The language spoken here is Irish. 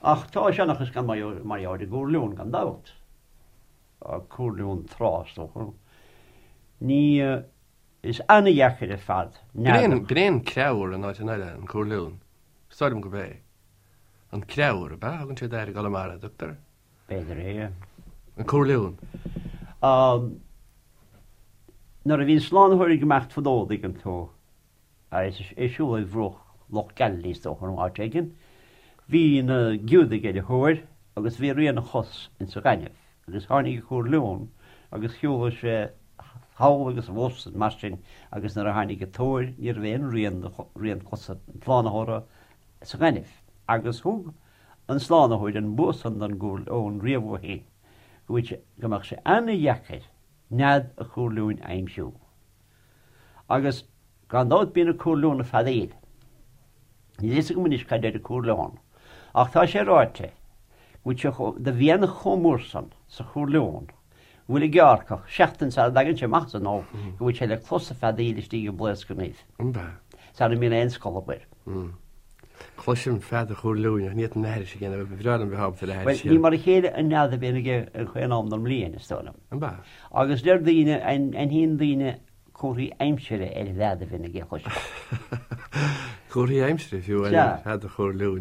Ach tá seanchas gan mar gheall ar an gcúr leon gan dabht. Cúr leon trá is dócha. Ní is an-dheacair ar fad nead a. B'in é an creabhar in áiteanna eile, an cúr leon. Is dóigh liom gurb é. An creabhar, ab ea? Thugann siad air i gConamara, an dtugtar? B'fhéidir é. An cúr leon. Nuair a bhí an Slánaitheoir ag imeacht fadó, an dtuigeann tú, agus é ag siúl ar bhruach Loch Galilee is dócha nó áit éigin, bhí na Giúdaigh ar a thóir agus bhí rian a chos insa ghaineamh agus tháinig an cúr leon agus shiúlaigh sé thall agus abhus mar sin agus nuair a tháinig an tóir ní raibh aon rian de rian cosa an tSlánaitheora sa ghaineamh agus thug an Slánaitheoir an bua san don gcúr leon riamh ó shin go bhfuil sé, go mbeadh sé ana-dheacair nead an chúr leoin a aimsiú. Agus gan dabht bíonn an cúr leon ag feadaíl. Níl a fhios agam anois cad deir an cúr leon, ach tá sé ráite go bhfuil sé chomh, do mhianach chomh mór san sa chúr leon go bhfuil an gearrcach, seachtain sara dtagann sé amach as an ubh, go bhfuil sé le clos ag feadaíl istigh i mblaosc an uibh. Sara mbíonn aon scolb air. Cloisim fead an chúr leoin ach ní fhéadfainn aithris a dhéanamh, ba bhreá liom bheith ábalta le haithris a dhéanamh. Bhuel, ní mar a chéile an nead a bhíonn aige ar chaon am den mbliain, is dóigh liom. An b'ea? Agus deir daoine, aithníonn daoine comharthaí aimsire ar an bhfead a bhíonn aige, a chloisim. Comharthaí aimsire, fiú, ar fhead an chúr leoin.